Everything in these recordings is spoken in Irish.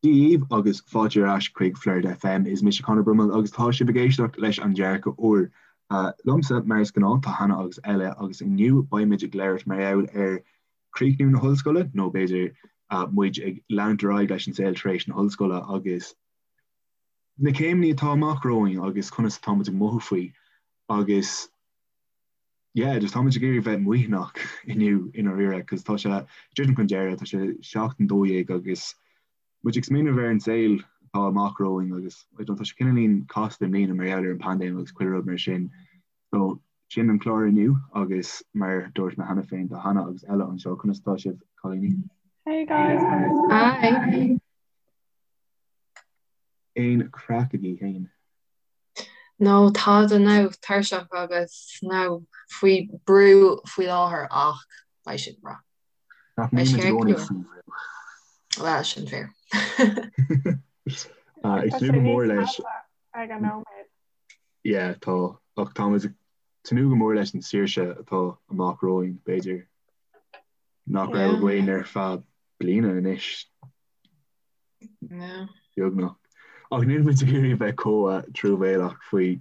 Dia dhaoibh agus fáilte ar ais chuig Flord FM. Is mise Conor Brummel agus tá sibh ag éisteacht leis an Dearcadh Úr. Liomsa, mar is gnáth, tá Hannah agus Ella agus inniu beimid ag labhairt mar gheall ar chríochnú na hollscoile, nó b'fhéidir muid ag leanúint ar aghaidh leis an saol tar éis na hollscoile agus na céimeanna atá amach romhainn agus conas atá muid ag mothú faoi agus yeah, just táimid ag iarraidh bheith maoithneach inniu i ndáiríre cos tá sé ag druidim chun deireadh, tá sé seachtain 12 agus muid ag smaoineamh ar an saol atá amach romhainn agus I don't tá sé cineáilín casta i mbliana mar gheall ar an paindéim agus chuile rud mar sin. So sin an clár inniu agus mar dúirt mé cheana féin tá Hannah agus Ella anseo, conas atá sibh cailíní? Hey guys! Hi! Aon craic agaibh féin? No, tada now, tuirseach agus now faoi brú faoi láthair ach beidh sé breá. Nach mbíonn muid i gcónaí faoi bhrú? Bhuel, sin fíor. Ag tnúth go mór leis. Ag an nóiméad. Yeah, tá. Ach táimid ag tnúth go mór leis an saoirse atá amach romhainn, b'fhéidir, nach raibh againn ar feadh bliana anois. Beagnach. Ach níl muid ag iarraidh bheith chomh truamhéalach faoi.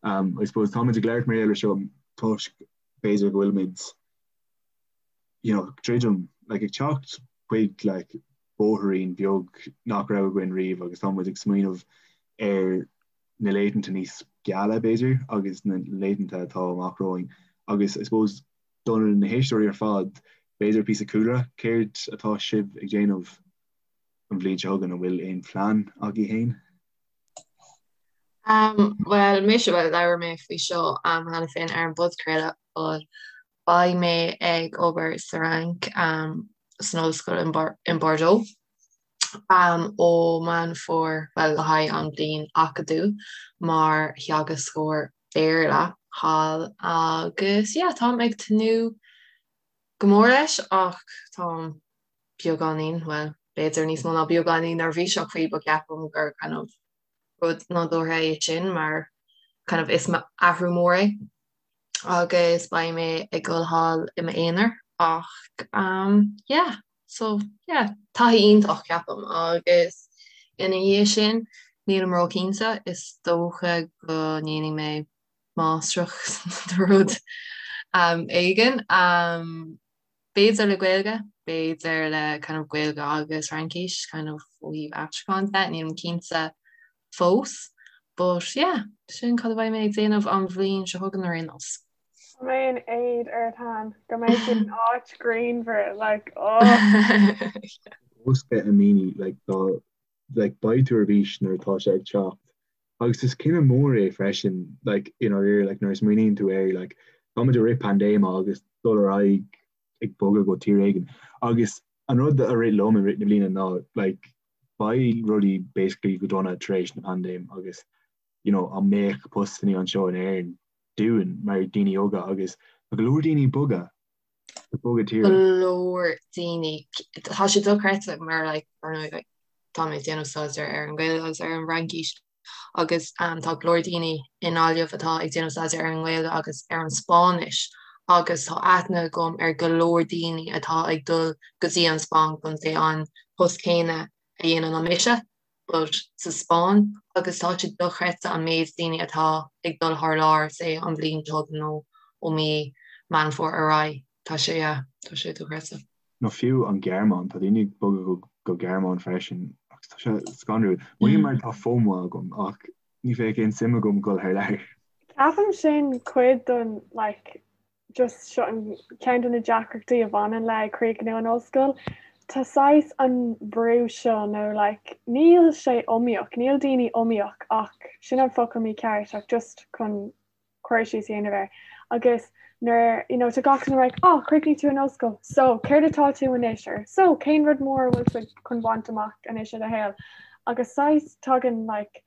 I suppose táimid ag labhairt mar gheall air seo toisc b'fhéidir go bhfuilimid you know, druidim, like, ag teacht chuig like, bóithrín beag nach raibh againn riamh agus táimid ag smaoineamh ar na laethanta níos geala b'fhéidir agus na laethanta atá amach romhainn agus I suppose do na héisteoirí ar fad b'fhéidir píosa cúlra céard atá sibh ag déanamh an bhliain seo chugainn, an bhfuil aon phlean agaibh féin? Bhuel, mise, bhuel, labhair mé faoi seo cheana féin ar an bpodchraoladh, but beidh mé ag obair sa Fhrainc san ollscoil in Bordeaux ó Meán Fómhair, bhuel, le haghaidh an bhliain acadúil mar theagascóir Béarla thall agus yeah, táim ag tnúth go mór leis ach táim beagáinín, bhuel, b'fhéidir níos mó ná beagáinín neirbhíseach faoi but ceapaim gur kind of rud nádúrtha é sin mar kind of is athrú mór é agus beidh mé ag dul thall i m'aonar ach um, yeah, so yeah, taithí iontach ceapaim agus ina dhiaidh sin nílim róchinnte, is dócha go ndéanfaidh mé máistreacht nó rud um, éigin. Um, B'fhéidir le Gaeilge, b'fhéidir le kind of Gaeilge agus Fraincis kind of ó thaobh aistriúcháin de, nílim cinnte fós. But yeah, sin cad a bheidh mé ag déanamh an bhliain seo chugainn ar aon nós. Tá mé in éad ort Han, go mbeidh tú in áit ghrianmhar, like, oh! Bosca a mhíní, like, dá, like, beidh tú ar bís nuair atá sé ag teacht. Agus is cinneadh mór é freisin, like, i ndáiríre, like, nuair a smaoiníonn tú air, like, táimid i rith paindéime agus dul ar aghaidh ag bogadh go tír éigin. Agus an rud a rith liom i rith na bliana ná, like, beidh rudaí basically go dona tar éis na paindéime agus, you know, an mbeadh postannaí anseo in Éirinn dúinn mar daoine óga agus tá go leor daoine ag bogadh, ag bogadh tíre. Go leor daoine, tá sé dochreidte mar, like, ar ndóigh, like, tá mé ag déanamh staidéar ar an Ghaeilge agus ar an bhFraincis agus tá go leor daoine i nGaillimh atá ag déanamh staidéar ar an nGaeilge agus ar an Spáinnis agus tá aithne agam ar go leor daoine atá ag dul go dtí an Spáinn chun say an post céanna a dhéanann an mise but sa Spáinn agus tá sé dochreidte an méid daoine atá ag dul thar lear say an bhliain seo chugainn nó ó mí Meán Fómhair ar aghaidh. Tá sé, yeah, tá sé dochreidte. Nó fiú an Ghearmáin, tá daoine ag bogadh go Gearmáin freisin agus tá sé scanrúil. Mothaím mar tá FOMO agam ach ní bheadh aon suim agam dul thar lear. Ceapaim sin cuid den like just seo an ceann de na deacrachtaí a bhaineann le críochnú an ollscoil. Tá saghas an brú seo nó like níl sé iomaíoch, níl daoine iomaíoch ach sin an focal mícheart ach just chun cur síos a dhéanamh air. Agus nuair, you know, tá gach duine like, oh, chríochnaigh tú an ollscoil, so céard atá tú anois or so cén rud mór a bhfuil tú chun baint amach anois i do shaol? Agus saghas tagann like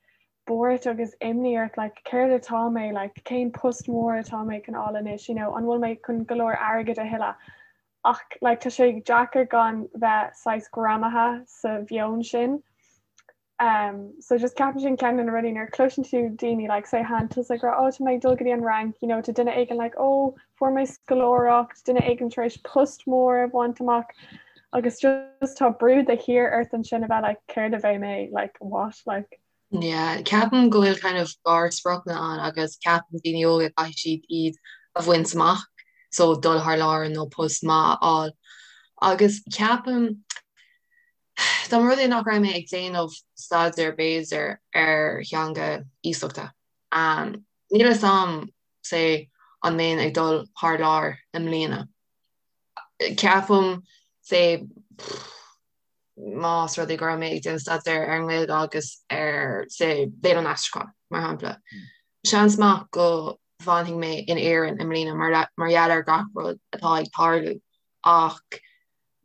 buairt agus imní ort like céard atá mé like cén post mór atá mé chun fháil anois, you know, an bhfuil mé chun go leor airgid a thuilleadh? Ach like tá sé deacair gan bheith saghas greamaithe sa mheon sin. Um, so just ceapaim sin ceann de na rudaí nuair cloiseann tú daoine like say Han tusa ag rá oh tá mé ag dul go dtí an Fhrainc, you know, tá duine éigin like oh fuair mé scoláireacht, duine éigin tar éis post mór a bhaint amach. Agus just tá brú de shíor ort ansin a bheith like céard a bheidh mé like what like. Yeah, ceapaim go bhfuil kind of garspriocanna ann agus ceapann daoine óga caithfidh siad iad a bhaint amach, so dul thar lear nó post maith a fháil. Agus ceapaim dá mba rud é nach raibh mé ag déanamh staidéar b'fhéidir ar theanga iasachta, um, níl a fhios a'm say an mbeinn ag dul thar lear i mbliana. Ceapaim say más rud é go raibh mé ag déanamh staidéar ar an nGaeilge agus ar say léann an aistriúcháin, mar shampla. Seans maith go bhfanfaidh mé in Éirinn i mbliana mar mar gheall ar gach rud atá ag tarlú ach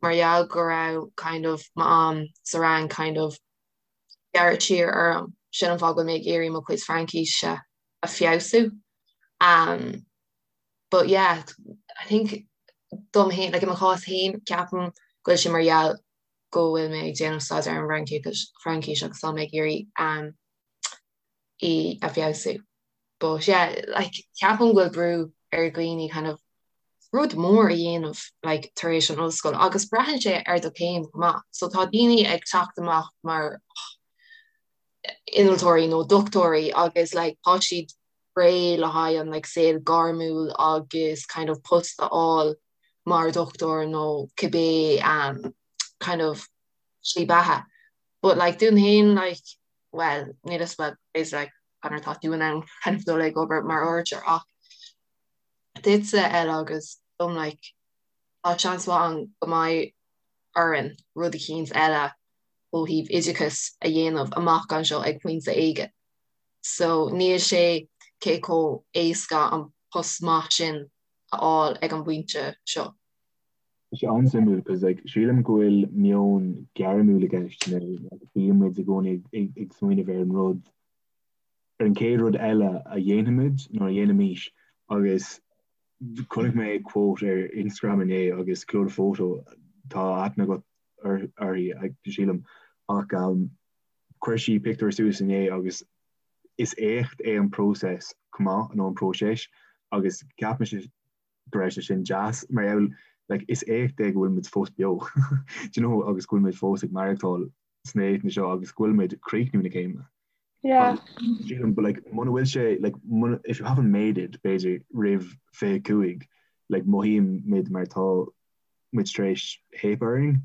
mar gheall go raibh kind of m'am sa Fhrainc kind of gearrtha siar orm, sin an fáth go bhfuil mé ag iarraidh mo chuid Fraincíse a feabhsú. Um, but yeah, I think dom féin, like i mo chás féin, ceapaim go bhfuil sé mar gheall go bhfuil mé ag déanamh staidéar ar an bhFraincis agus tá mé ag iarraidh um, í a feabhsú. But yeah, like ceapaim go bhfuil brú ar dhaoine kind of rud mór a dhéanamh like tar éis an ollscoil agus braitheann sé ar do chéim chomh maith. So tá daoine ag teacht amach mar innealtóirí nó dochtúirí agus like tá siad réidh le haghaidh an like saol gairmiúil agus kind of post a fháil mar dhochtúir nó cibé um, kind of slí beatha. But like dúinn féin like well níl a fhios well is like an tá tú in ann kind of dul ag obair mar fhuirseoir ach duitse Ella agus dom like tá seans mhaith ann go mbeidh orainn rud eicínt eile ó thaobh oideachais a dhéanamh amach anseo ag pointe éigin. So níl sé cé chomh éasca an post maith sin a fháil ag an bpointe seo. Tá sé an-suimiúil cos like sílim go bhfuil meon gairmiúil i gceist nó like bíonn muid i gcónaí ag smaoineamh ar an rud ar an chéad rud eile a dhéanfaimid nó a dhéanfaimis agus chonaic mé quote ar Instagram inné agus Clodagh Photo tá aithne agat uirthi sílim ach um, chuir sí pictiúr suas inné agus is éacht é an próiseas chomh maith nó an próiseas agus ceapaim go raibh sé sin deas mar gheall like is éacht é go bhfuil muid fós beo do you know agus go bhfuil muid fós ag maireachtáil sna laethanta seo agus go bhfuil muid ag críochnú na céime. Yeah. Sílim but like muna bhfuil sé like muna if you haven't made it b'fhéidir roimh 25 like mothaíonn muid mar tá muid tar éis theip orainn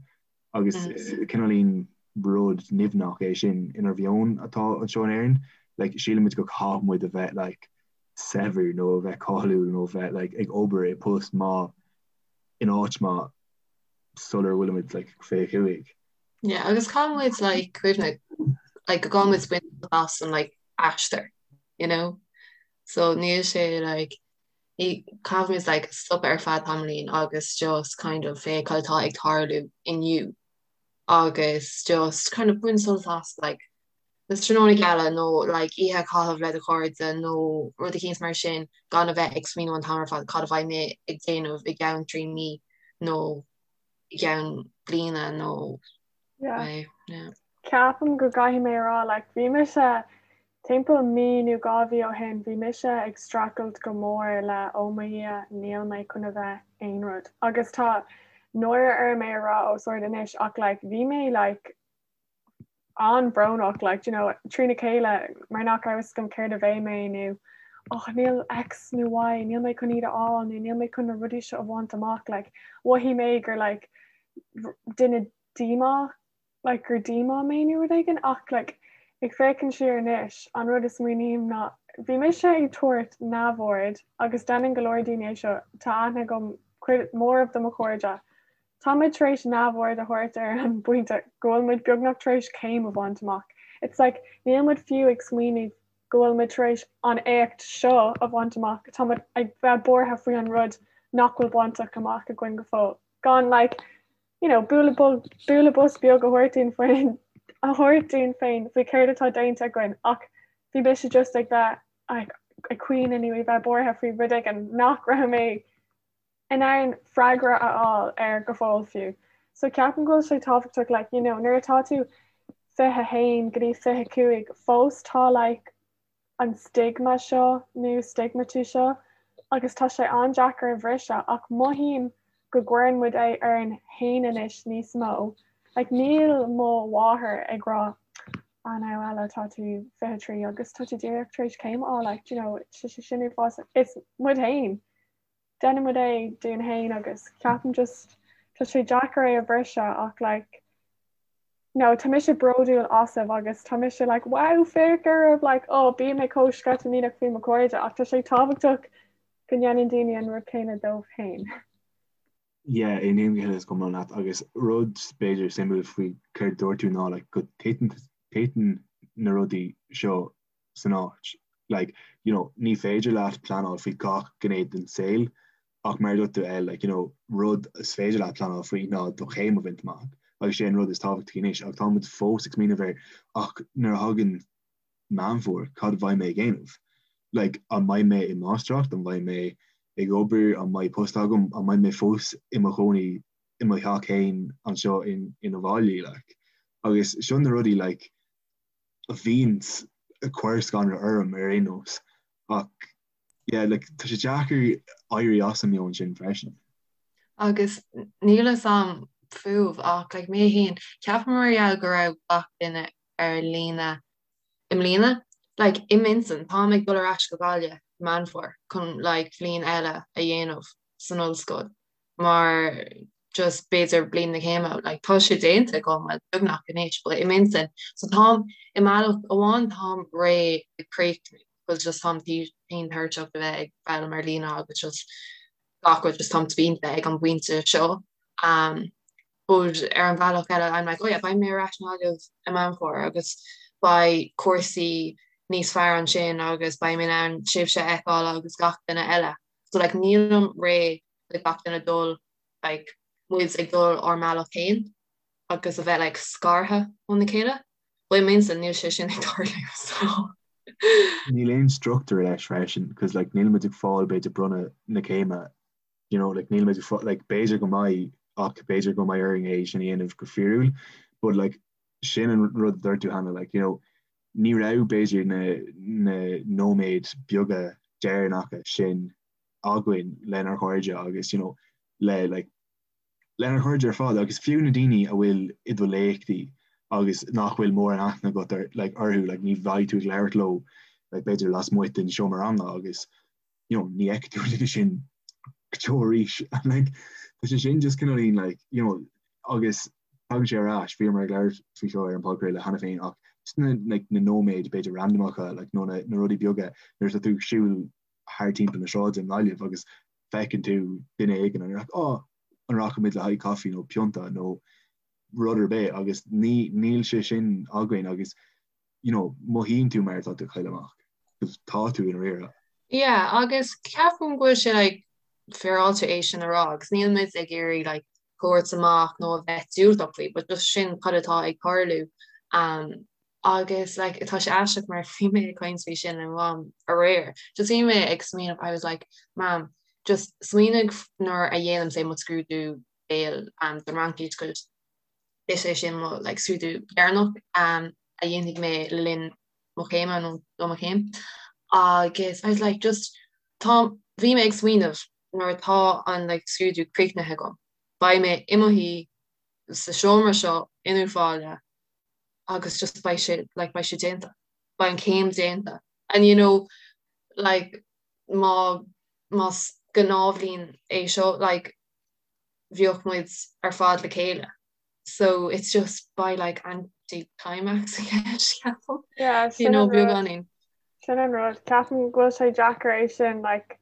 agus mm. is cineáilín rud nimhneach é sin inár mheon atá anseo in Éirinn like sílimid go caithfidh muid a bheith like saibhir nó a bheith cáiliúil nó a bheith like ag obair i post maith in áit maith sular bhfuilimid like 25. Yeah, agus caithfidh muid like cuimhneamh like go gcaithfidh muid baint as an like aistear, you know? So níl sé like ní caithfidh muid like stopadh ar feadh tamaillín agus just kind of féach cad atá ag tarlú inniu agus just kind of baint sult as like na tráthnóna geala nó like oíche a chaitheamh le do chairde nó rud eicínt mar sin gan a bheith ag smaoineamh an t-am ar fad cad a bheidh mé ag déanamh i gceann 3 mí nó i gceann bliana nó Yeah. Yeah. Ceapaim go gcaithfidh mé a rá like bhí mise timpeall mí nó 2 mhí ó shin bhí mise ag streachailt go mór le oh mo Dhia níl mé chun a bheith aon rud agus tá náire orm é a rá os ard anois ach like bhí mé like an-bhrónach like you know trína chéile mar nach raibh fhios agam céard a bheidh mé nó oh níl X nó Y níl mé chun iad a fháil nó níl mé chun na rudaí seo a bhaint amach like mhothaigh mé gur like duine díomá like gur díomá mé nó rud éigin ach like ag féachaint siar anois an rud a smaoiním ná bhí mise ag tabhairt neamhaird agus déanann go leor daoine é seo tá aithne agam cuid mór de mo chairde Tá muid tar éis neamhaird a thabhairt ar an bpointe go bhfuil muid beagnach tar éis céim a bhaint amach. It's like níl muid fiú ag smaoineamh go bhfuil muid tar éis an éacht seo a bhaint amach, tá muid ag bheith buartha faoi an rud nach bhfuil bainte amach againn go fóill. Gan like, you know, bualadh bualadh bos beag a thabhairt dúinn féin a thabhairt dúinn féin faoi céard atá déanta againn ach bhí mise just ag bheith ag caoineadh nó ag bheith buartha faoi rud éigin nach raibh mé in ann freagra a fháil air go fóill fiú. So ceapaim go bhfuil sé tábhachtach like, you know, nuair atá tú 21 go dtí 25 fós tá like an stigma seo nó stigmatú seo agus tá sé an-deacair a bhriseadh ach mothaím. go gcuireann muid é orainn féin anois níos mó. Like níl mo mháthair ag rá ah now Ella tá tú 23 agus tá tú díreach tar éis céim a fháil like do you know tá sé sin uafásach. Is muid féin. Déanann muid é dúinn féin agus ceapaim just tá sé deacair é a bhriseadh ach like no tá mise bródúil asaibh agus tá mise like wow féach oraibh like oh bím mé chomh sceitimíneach faoi mo chairde ach tá sé tábhachtach go ndéanann daoine an rud céanna dóibh féin. Yeah, aontaím go huile is go hiomlán leat agus rud b'fhéidir suimiúil faoi céard dúirt tú ná like go titeann na rudaí seo san áit. Like, you know, ní féidir leat pleanáil faoi gach gné den saol ach mar a dúirt tú El, like, you know, rud is féidir leat pleanáil faoi ná do chéim a bhaint amach agus sé an rud is tábhachtaí anois ach tá muid fós ag smaoineamh ar ach nuair a thagann Meán Fómhair, cad a bheidh mé ag déanamh? Like, an mbeidh mé i máistreacht, an mbeidh mé ag obair, an mbeidh post agam, an mbeidh mé fós i mo chónaí i mo theach féin anseo in in Uíbh Fhailí, like. Agus seo na rudaí, like, a bhíonns ag cur scanradh orm ar aon nós. Ach, yeah, like, tá sé deacair éirí as an meon sin freisin. Agus níl fhios a'm fúibh ach, like, mé féin, ceapaim mar gheall go raibh gach duine ar líne i mbliana. Like, i m'intinn, táim ag dul ar ais go Gaillimh i Meán Fómhair chun like bhliain eile a dhéanamh san ollscoil mar just b'fhéidir bliain na céime, like tá sé déanta agam, well beagnach anois, but i m'intinn. So táim, i mbealach amháin táim réidh ag críochnú because just táim tinn tuirseach de bheith ag foghlaim ar líne agus just gach rud just táim spíonta ag an bpointe seo. Um, But ar an bhealach eile, I'm like, oh yeah, beidh mé ar ais i nGaillimh i Meán Fómhair agus beidh cúrsaí níos fearr ansin agus beidh mé in ann sibhse a fheiceáil agus gach duine eile. So like nílim réidh le gach duine dul like muid ag dul ár mbealach féin agus a bheith like scartha óna chéile. But i m'intinn níl sé sin ag tarlú so. Níl aon struchtúr leis freisin, cos like níl muid ag fáil b'fhéidir bronnadh na céime you know, like, níl muid like, b'fhéidir go mbeidh ach b'fhéidir go mbeidh orainn é sin a dhéanamh go fíorúil, but like, sin an rud a dúirt tú Hannah, like, you know, ní raibh b'fhéidir na, na nóiméid beaga deireanacha sin againn lenár gcairde agus you know, le like, lenár gcairde ar fad agus fiú na daoine a bhfuil i do léachtaí agus nach bhfuil mórán aithne agat ar, like, orthu, like, ní bheidh tú ag labhairt leo like, b'fhéidir lasmuigh den seomra ranga agus you know, ní fheicfidh tú an duine sin go deo arís and like tá sé sin just cineáilín like you know agus tagann sé ar ais bhíomar ag labhairt faoi seo ar an podchraoladh cheana féin ach just na like na nóiméid b'fhéidir randamacha like nó na na rudaí beaga nuair atá tú ag siúl thar timpeall na sráide i nGaillimh agus feiceann tú duine éigin and you're like oh an rachaimid le haghaidh caife nó pionta nó rud ar bith agus ní níl sé sin againn agus you know, mothaíonn tú mar atá tú ag cailleadh amach, 'cause tá tú i ndáiríre. Yeah, agus ceapaim go bhfuil sé like féaráilte é sin a rá agus níl muid ag iarraidh like tabhairt amach nó a bheith diúltach faoi, but just sin cad atá ag tarlú. Um, agus like tá sé aisteach mar bhí mé ag caint faoi sin le mam aréir. Just bhí mé ag smaoineamh, I was like, Mam, just smaoinigh nuair a dhéanaim say mo scrúdú béil um, don Fhraincis 'cause Is é sin mo like scrúdú deireanach a dhéanfaidh mé le linn mo chéime nó do mo chéim. Agus I was like just tá bhí mé ag smaoineamh nuair atá an like scrúdú críochnaithe agam, beidh mé i mo shuí sa seomra seo in Uíbh Fhailí agus just beidh sé like beidh sé déanta, beidh an chéim déanta. And you know like má más gnáthbhliain é seo like bheadh muid ar fad le chéile so it's just by like anti-climax I guess ceapaim. Yeah, you know beagáinín. Sin an rud, ceapaim go bhfuil sé deacair é sin like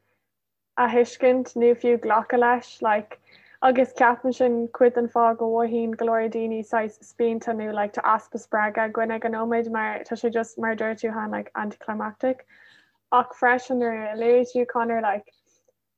a thuiscint nó fiú glacadh leis like agus ceapaim sin cuid den fáth go mothaíonn go leor daoine saghas spíonta nó like tá easpa spreagadh againn ag an nóiméad mar tá sé just mar a dúirt tú Hannah like anticlimactic ach freisin nuair a luaigh tú Conor like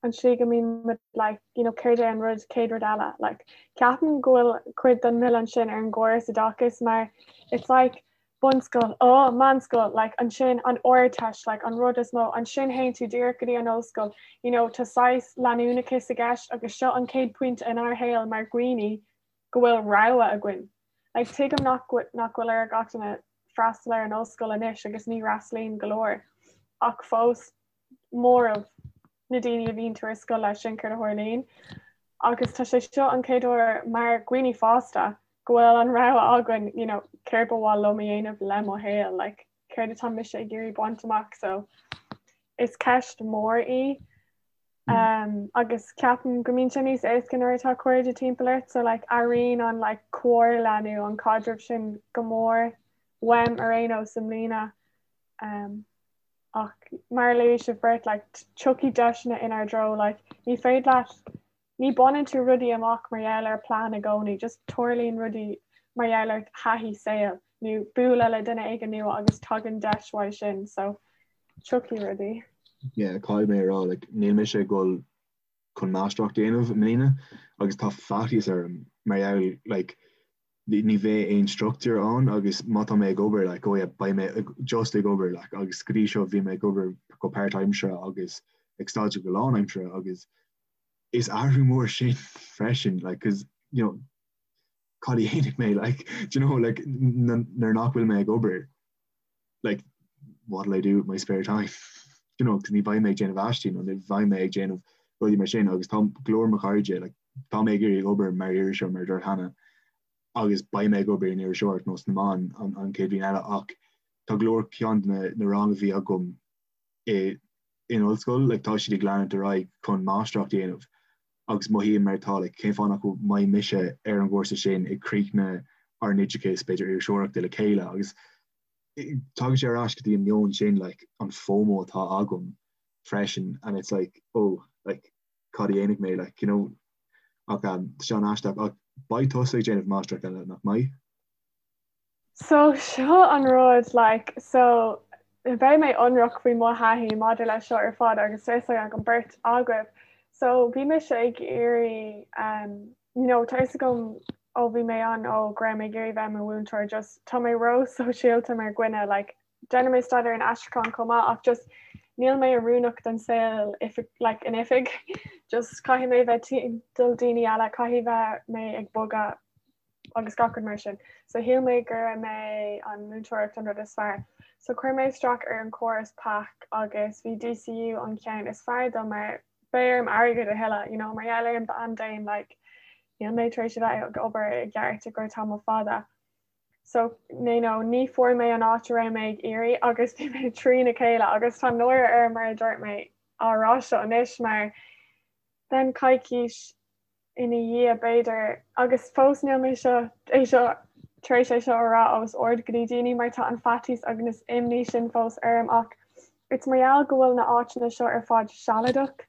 an tslí go mbíonn muid like you know céard é an rud céad rud eile like ceapaim go bhfuil cuid den milleán sin ar an gcóras oideachais mar it's like bunscoil oh meánscoil like ansin an Ardteist like an rud is mó ansin théann tú díreach go dtí an ollscoil you know tá saghas leanúnachas i gceist agus seo an chéad pointe inár shaol mar dhaoine go bhfuil rogha againn like tuigim nach nach bhfuil ar gach duine freastal ar an ollscoil anois agus ní fhreastalaíonn go leor ach fós móramh na daoine a bhíonn tú ar scoil leis sin céard a tharlaíonn. Agus tá sé seo an chéad uair mar dhaoine fásta go bhfuil an rogha againn, you know, céard ba mhaith liom a dhéanamh le mo shaol, like, céard atá mise ag iarraidh baint amach, so is ceist mhór í. Um, agus ceapaim go mbíonn sé níos éasca nuair atá cairde timpeall ort, so like, airíonn an like, comhairle nó an caidreamh sin go mór uaim ar aon nós i mbliana. Um, ach mar a luaigh sibh beirt, like, tiocfaidh deiseanna inár dtreo, like, ní féidir leat, ní baineann tú rudaí amach mar gheall ar plean i gcónaí, just tarlaíonn rudaí mar gheall ar thaithí saoil nó bualadh le duine éigin nua agus tagann deis uaidh sin, so tiocfaidh rudaí. Yeah, caithfidh mé a rá, like, níl mise ag dul chun máistreacht a dhéanamh i mbliana agus tá faitíos orm mar gheall, like, ní bheidh aon struchtúr ann agus má tá mé ag obair like oh yeah beidh mé just ag obair like agus go dtí seo bhí mé ag obair go páirtaimseartha agus ag staidéar go lánaimseartha agus is athrú mór sin freisin like cause you know cad a dhéanfaidh mé like do you know like nuair nach bhfuil mé ag obair like what will I do with my spare time you know cause ní bheidh mé ag déanamh aistí nó ní bheidh mé ag déanamh rudaí mar sin agus tá go leor mo chairde like tá mé ag iarraidh obair mar iriseoir mar a dúirt Hannah agus beidh mé ag obair in iriseoireacht nó sna meáin an, an chéad bhliain eile ach tá go leor ceann de na, na rang a bhí agam i in ollscoil like tá siad ag leanúint ar aghaidh chun máistreacht a dhéanamh agus mothaím mar atá like cén fáth nach mbeidh mise ar an gcúrsa sin ag críochnú ár n-oideachas b'fhéidir iriseoireachta le chéile agus tagann sé ar ais go dtí an meon sin like an FOMO atá agam freisin and it's like oh like cad a dhéanfaidh mé like you know ach um, tá sé an-aisteach ach beidh tusa ag déanamh máistreacht eile nach mbeidh? So seo an rud like so beidh mé ionraic faoi mo thaithí maidir leis seo ar fad agus tá fhios ag an beirt agaibh. So bhí mise ag iarraidh um, you know, tá fhios agam ó bhí mé an-óg go raibh mé ag iarraidh bheith i mo mhúinteoir just tá mé ró-sóisialta mar dhuine like déanann mé staidéar in aistriúchán chomh maith ach just níl mé oiriúnach don saol oifig like in oifig just caithfidh mé bheith timpeall daoine eile caithfidh bheith mé ag bogadh agus gach rud mar sin. So shíl mé go mbeadh an múinteoireacht an rud is fearr. So chuir mé isteach ar an córas PAC agus bhí DCU an ceann is fearr dom mar beidh orm airgead a thuilleadh, you know, mar gheall ar an bpaindéim like níl mé tar éis a bheith ag obair i gceart i gcomhair tamall fada. So you know, ní fuair mé an áit a raibh mé ag iarraidh agus bhí mé trína chéile agus tá náire orm mar a dúirt mé á rá seo anois mar then coicís ina dhiaidh b'fhéidir agus fós níl mé seo é seo tar éis é seo a rá os ard go dtí daoine mar tá an faitíos agus imní sin fós orm ach it's mar gheall go bhfuil na áiteanna seo ar fad sealadach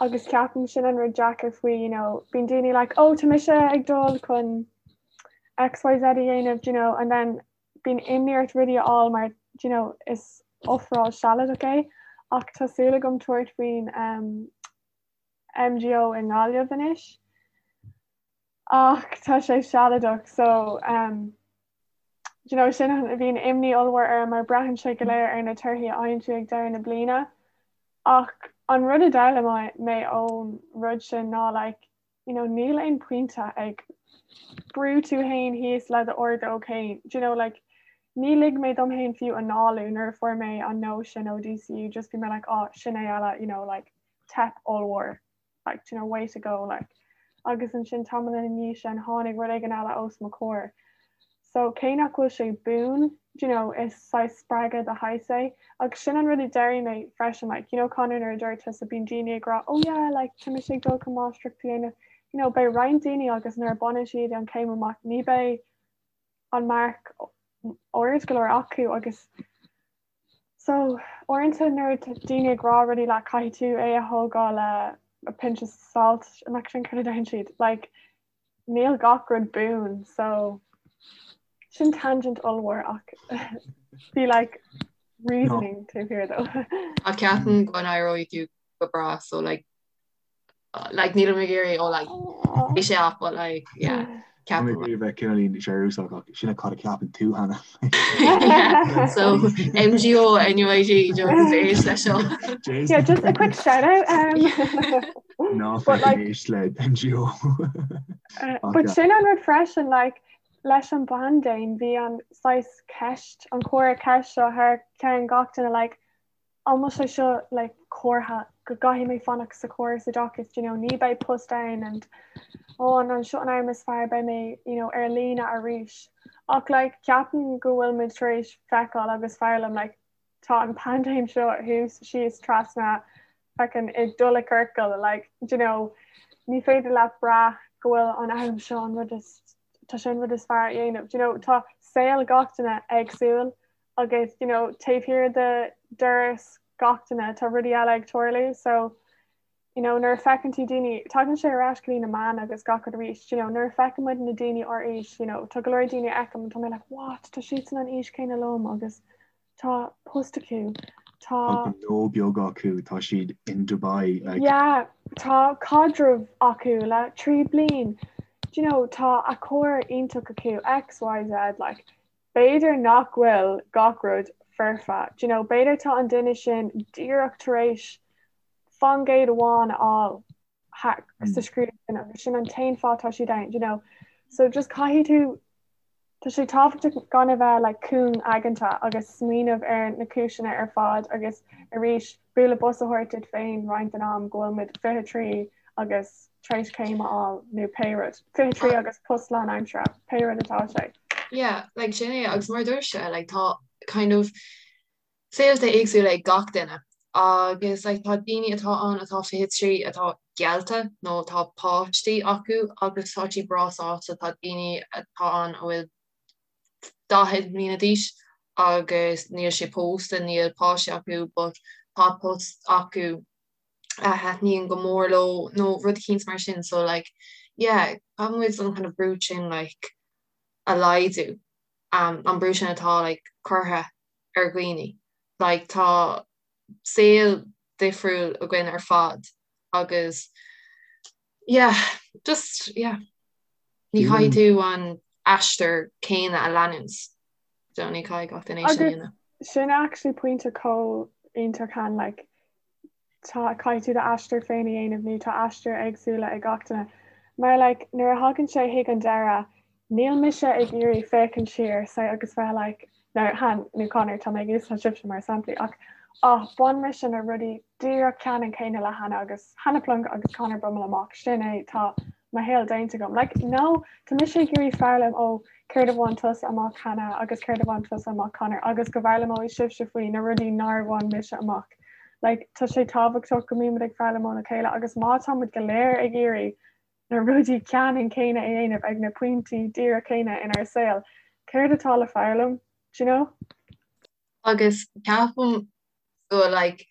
agus ceapaim sin an rud deacair faoi you know bíonn daoine like oh tá mise ag dul chun XYZ a dhéanamh you know and then bíonn imní ort rudaí a fháil mar you know is ofráil sealadach é ach tá súil agam tabhairt faoin um, MGO i nGaillimh anois ach tá sé sealadach so um, you know, sin a bhíonn imní ollmhór orm mar braitheann sé go léir ar na torthaí a fhaigheann tú ag deireadh na bliana. Ach an rud a d'fhoghlaim mé ón rud sin ná like, you know, níl aon pointe ag brú tú féin thíos le d'ordóg féin. Do you know, like, ní lig mé dom féin fiú análú nuair a fuair mé an no sin ó DCU, just bhí mé like, oh, sin é eile, you know, like, teip ollmhór like you know way to go like agus ansin tamall ina dhiaidh sin tháinig rud éigin eile os mo chomhair. So cé nach bhfuil sé buan you know is saghas spreagadh de shaghas é agus sin an rud a d'airigh mé freisin like you know Conor nuair a dúirt tusa bíonn daoine ag rá oh yeah like tá mise ag dul chun máistreacht a dhéanamh you know beidh roinnt daoine agus nuair a baineann siad an chéim amach ní beidh an marc ard go leor acu agus So, uaireanta nuair atá daoine ag rá rudaí leat caithfidh tú é a thógáil le a pinch of salt nach sin cad a deireann siad? Like, níl gach rud buan, so sin tangent ollmhór ach bhí like reasoning taobh thiar dó. Ach ceapaim go n-éireoidh tú go breá so like like nílim ag iarraidh ó like bhí sé off but like yeah ceapaim Tá mé ag iarraidh bheith cineáilín searúsach ach sin cad a ceapann tú Hannah. So MGO NUIG just éist leis seo. Yeah, just a quick shout out. Um, Ná But, like- éist le MGO. uh, but sin an rud freisin like leis an bpaindéim bhí an saghas ceist an comhartha ceist seo thar ceann gach duine like an bhfuil sé seo like comhartha? go gcaithfidh mé fanacht sa chóras oideachais, do you know, ní beidh post ann and oh an an seo an am is fearr beidh mé you know, ar líne arís. Ach like, ceapaim go bhfuil muid tar éis feiceáil agus foghlaim like, tá an paindéim seo thuas síos trasna feckin ag dul i ciorcal like, do you know, ní féidir leat brath go bhfuil an am seo an rud is tá sé an rud is fearr a dhéanamh. Do you know, tá saol gach duine éagsúil agus you know, taobh thiar de doras gach duine tá rudaí eile ag tarlú so you know, nuair a feiceann tú daoine, tagann sé ar ais go dtí na meáin agus gach rud arís, you know, nuair a feiceann muid na daoine ár aois, you know, tá go leor daoine a fheicim, tá mé like, what, tá siadsan an aois céanna liom agus tá post acu, tá. Tá gnó beag acu, tá siad in Dubai, like. Yeah, tá caidreamh acu le 3 bliain, do you know, tá a carr iontach acu, X, Y, Z, like, B'fhéidir nach bhfuil gach rud foirfe, do you know, b'fhéidir tá an duine sin díreach tar éis faoin gcéad amháin a fháil sa scrúdú sin agus sin an t-aon fáth tá siad ann, do you know. So just caithfidh tú, tá sé tábhachtach gan a bheith like cúng aigeanta agus smaoineamh ar na cúiseanna ar fad agus arís bualadh bos a thabhairt duit féin roinnt den am go bhfuil muid 23 agus tar éis céim a fháil nó pé rud, 23 agus post lánaimseartha, pé rud atá sé. Yeah, like sin é agus mar a dúirt sé, like tá kind of saolta éagsúla ag gach duine agus like tá daoine atá ann atá 23 atá geallta nó tá páistí acu agus tá siad breá sásta, tá daoine atá ann a bhfuil 40 mbliana d'aois agus níl siad pósta, níl páistí acu but tá post acu a thaitníonn go mór leo nó rud eicínt mar sin so like yeah caithfidh muid an kind of brú sin like a laghdú um, an brú sin atá like curtha ar dhaoine like tá saol difriúil againn ar fad agus yeah just yeah ní chaithfidh tú an aistear céanna a leanúint so ní chaithfidh gach duine é sin a dhéanamh. Sin actually pointe chomh iontach Han like tá, caithfidh tú d'aistear féin a dhéanamh nó tá aistir éagsúla ag gach duine. Mar like nuair a thagann sé chuig an deireadh, níl mise ag iarraidh féachaint siar say agus bheith like, now Han nó Conor tá mé ag úsáid sibhse mar samplaí ach ah bhain mise na rudaí díreach ceannann céanna le Hannah agus Hannah Plunk agus Conor Brummel amach, sin é tá mo shaol déanta agam. Like no, tá mise ag iarraidh foghlaim ó céard a bhain tusa amach Hannah agus céard a bhain tusa amach Conor agus go bhfoghlaimeoidh sibhse faoi na rudaí nár bhain mise amach. Like tá sé tábhachtach go mbímid ag foghlaim óna chéile agus má tá muid go léir ag iarraidh na rudaí ceannann céanna a dhéanamh ag na pointí díreach céanna inár saol, céard atá le foghlaim, do you know? Agus ceapaim go like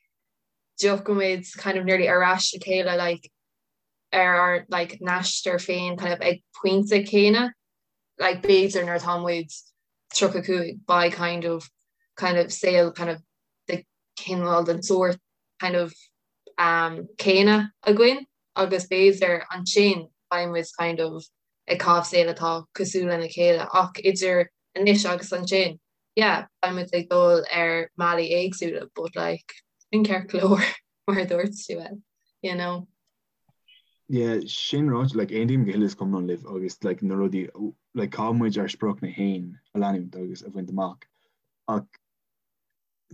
dtiocfaimid kind of nearly ar ais le chéile like ar ár like n-aistear féin kind of ag pointe céanna like b'fhéidir nuair atá muid 35 beidh kind of kind of saol kind of de cineál den sórt kind of um céanna againn agus b'fhéidir ansin beidh muid kind of ag caitheamh saol atá cosúil lena chéile ach idir anois agus ansin yeah beidh muid ag dul ar mbealaí éagsúla but like sin ceart go leor mar a dúirt tú you know. Yeah, sin ráite, like, aontaím go huile is go hiomlán libh agus like, na rudaí, like, caithfidh muid ár spriocanna féin a leanúint agus a bhaint amach. Ach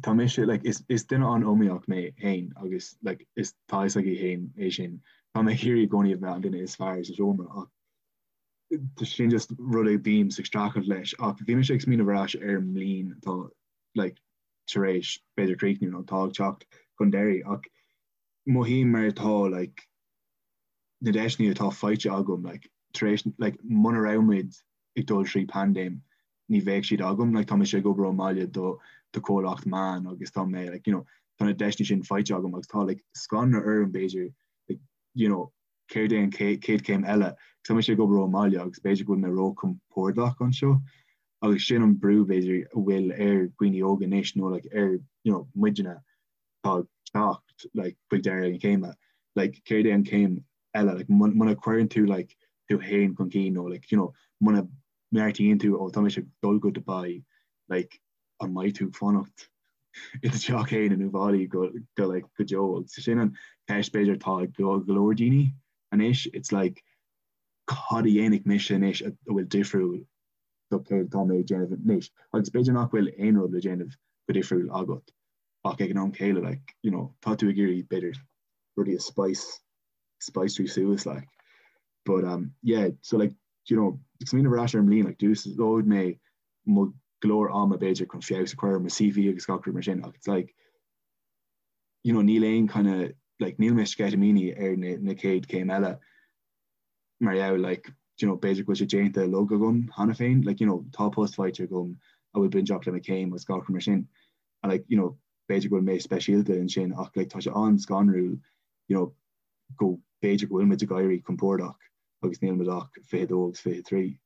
tá mise, like, is, is duine an-iomaíoch mé féin agus like, is tá fhios agaibh féin é sin. Tá mé ag iarraidh i gcónaí a bheith an duine is fearr sa seomra ach tá sin just rud a bím ag streachailt leis ach bhí mise ag smaoineamh ar ais ar an mbliain atá like, tar éis b'fhéidir críochnú nó atá ag teacht chun deiridh ach mothaím mar atá like na deiseanna atá faighte agam like tar éis like muna raibh muid ag dul trí paindéim ní bheadh siad agam like tá mise ag obair ón mbaile do do comhlacht meán agus tá mé like you know tá na deiseanna sin faighte agam agus tá like scanradh orm b'fhéidir like you know céard é an chéad chéim eile? Tá mise ag obair ón mbaile agus b'fhéidir go bhfuil mé róchompordach anseo agus sin an brú b'fhéidir a bhfuil ar dhaoine óga anois nó like ar you know muidne atá ag teacht like chuig deireadh na céime like céard é an chéim eile like muna cuireann tú like tú féin chun cinn nó like you know muna mbeartaíonn tú ó tá mise ag dul go Dubai like an mbeidh tú ag fanacht i do theach féin in Uíbh Fhailí go go like go deo agus sin an ceist b'fhéidir atá ag go go leor daoine anois it's like cad a dhéanfaidh mise anois a bhfuil difriúil do céard atá mé ag déanamh anois agus b'fhéidir nach bhfuil aon rud le déanamh go difriúil agat ach ag an am céile like you know tá tú ag iarraidh b'fhéidir. rudaí a spice spiceáil suas like. But um yeah, so like you know, ag smaoineamh ar ais ar an mbliain like d'úsáid mé mo go leor ama b'fhéidir chun feabhas a chur ar mo CV agus gach rud mar sin ach it's like you know níl aon kind of like níl mé sceitimíní ar na, na chéad céim eile mar gheall like you know b'fhéidir go bhfuil sé déanta uilig agam cheana féin like you know tá post faighte agam a bhfuil bainteach le mo chéim agus gach rud mar sin and like you know b'fhéidir go bhfuil mé speisialta ansin ach like tá sé an-scanrúil you know go b'fhéidir go bhfuil muid ag éirí compordach agus níl muid ach 22 agus 23.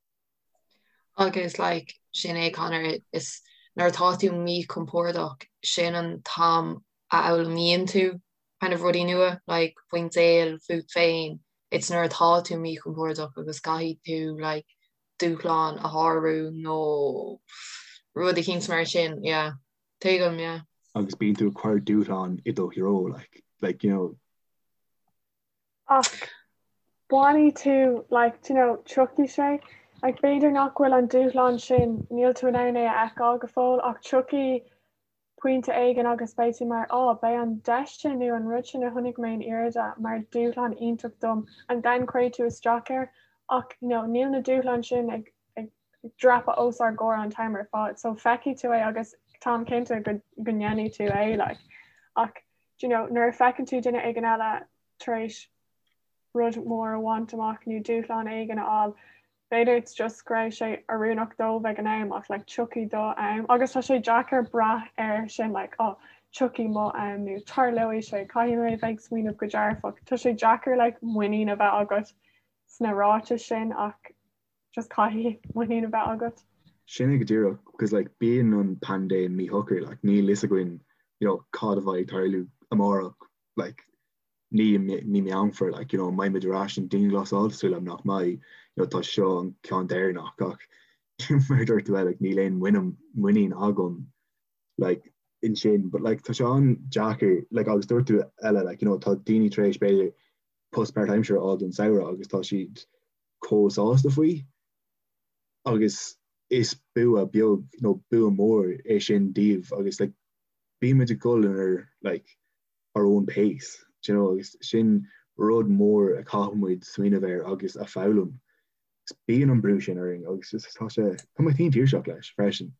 Agus like sin é Conor is nuair atá tú míchompordach sin an t-am a fhoghlaimíonn tú kind of rudaí nua like faoin saol fút féin it's nuair atá tú míchompordach agus caithfidh tú like dúshlán a shárú nó rud eicínt mar sin yeah tuigim yeah. Agus bíonn tú ag cur dúshlán i do threo like like you know Ach bainfidh tú like do you know tiocfaidh sé like b'fhéidir nach bhfuil an dúshlán sin níl tú in ann é a fheiceáil go fóill ach tiocfaidh pointe éigin agus beidh tú mar oh beidh an deis sin nó an rud sin a chonaic mé in Irida mar dúshlán iontach dom and then cuirfidh tú isteach air ach you know níl na dúshláin sin ag ag dreapadh os ár gcomhair an t-am ar fad so feicfidh tú é agus táim cinnte go go ndéanfaidh tú é like ach do you know nuair a feiceann tú duine éigin eile tar éis rud mór a bhaint amach nó dúshlán éigin a fháil b'fhéidir it's just go raibh sé oiriúnach dóibh ag an am ach like tiocfaidh do am agus tá sé deacair brath air sin like oh tiocfaidh mo am nó tarlóidh sé caithfidh mé bheith ag smaoineamh go dearfach tá sé deacair like muinín a bheith agat sna ráitis sin ach just caithfidh muinín a bheith agat. Sin é go díreach because like bíonn an paindéim míshocair like níl fhios againn you know cad a bheidh ag tarlú amárach like ní i mí Meán Fómhair like you know an mbeidh muid ar ais an dianghlasáil súil agam nach mbeidh you know tá seo an ceann deireanach ach mar a dúirt tú like níl aon muinín muinín agam like ansin but like tá sé an-deacair like agus dúirt tú Ella like you know tá daoine tar éis b'fhéidir post páirtaimseartha a fháil don samhradh agus tá siad chomh sásta faoi agus is bua beag nó bua mór é sin díobh agus like bímid ag dul in ar like our own pace, do you know, agus sin rud mór a chaithfidh muid smaoineamh air agus a foghlaim. Bíonn an brú sin orainn agus just tá sé, tá mé tinn tuirseach leis freisin.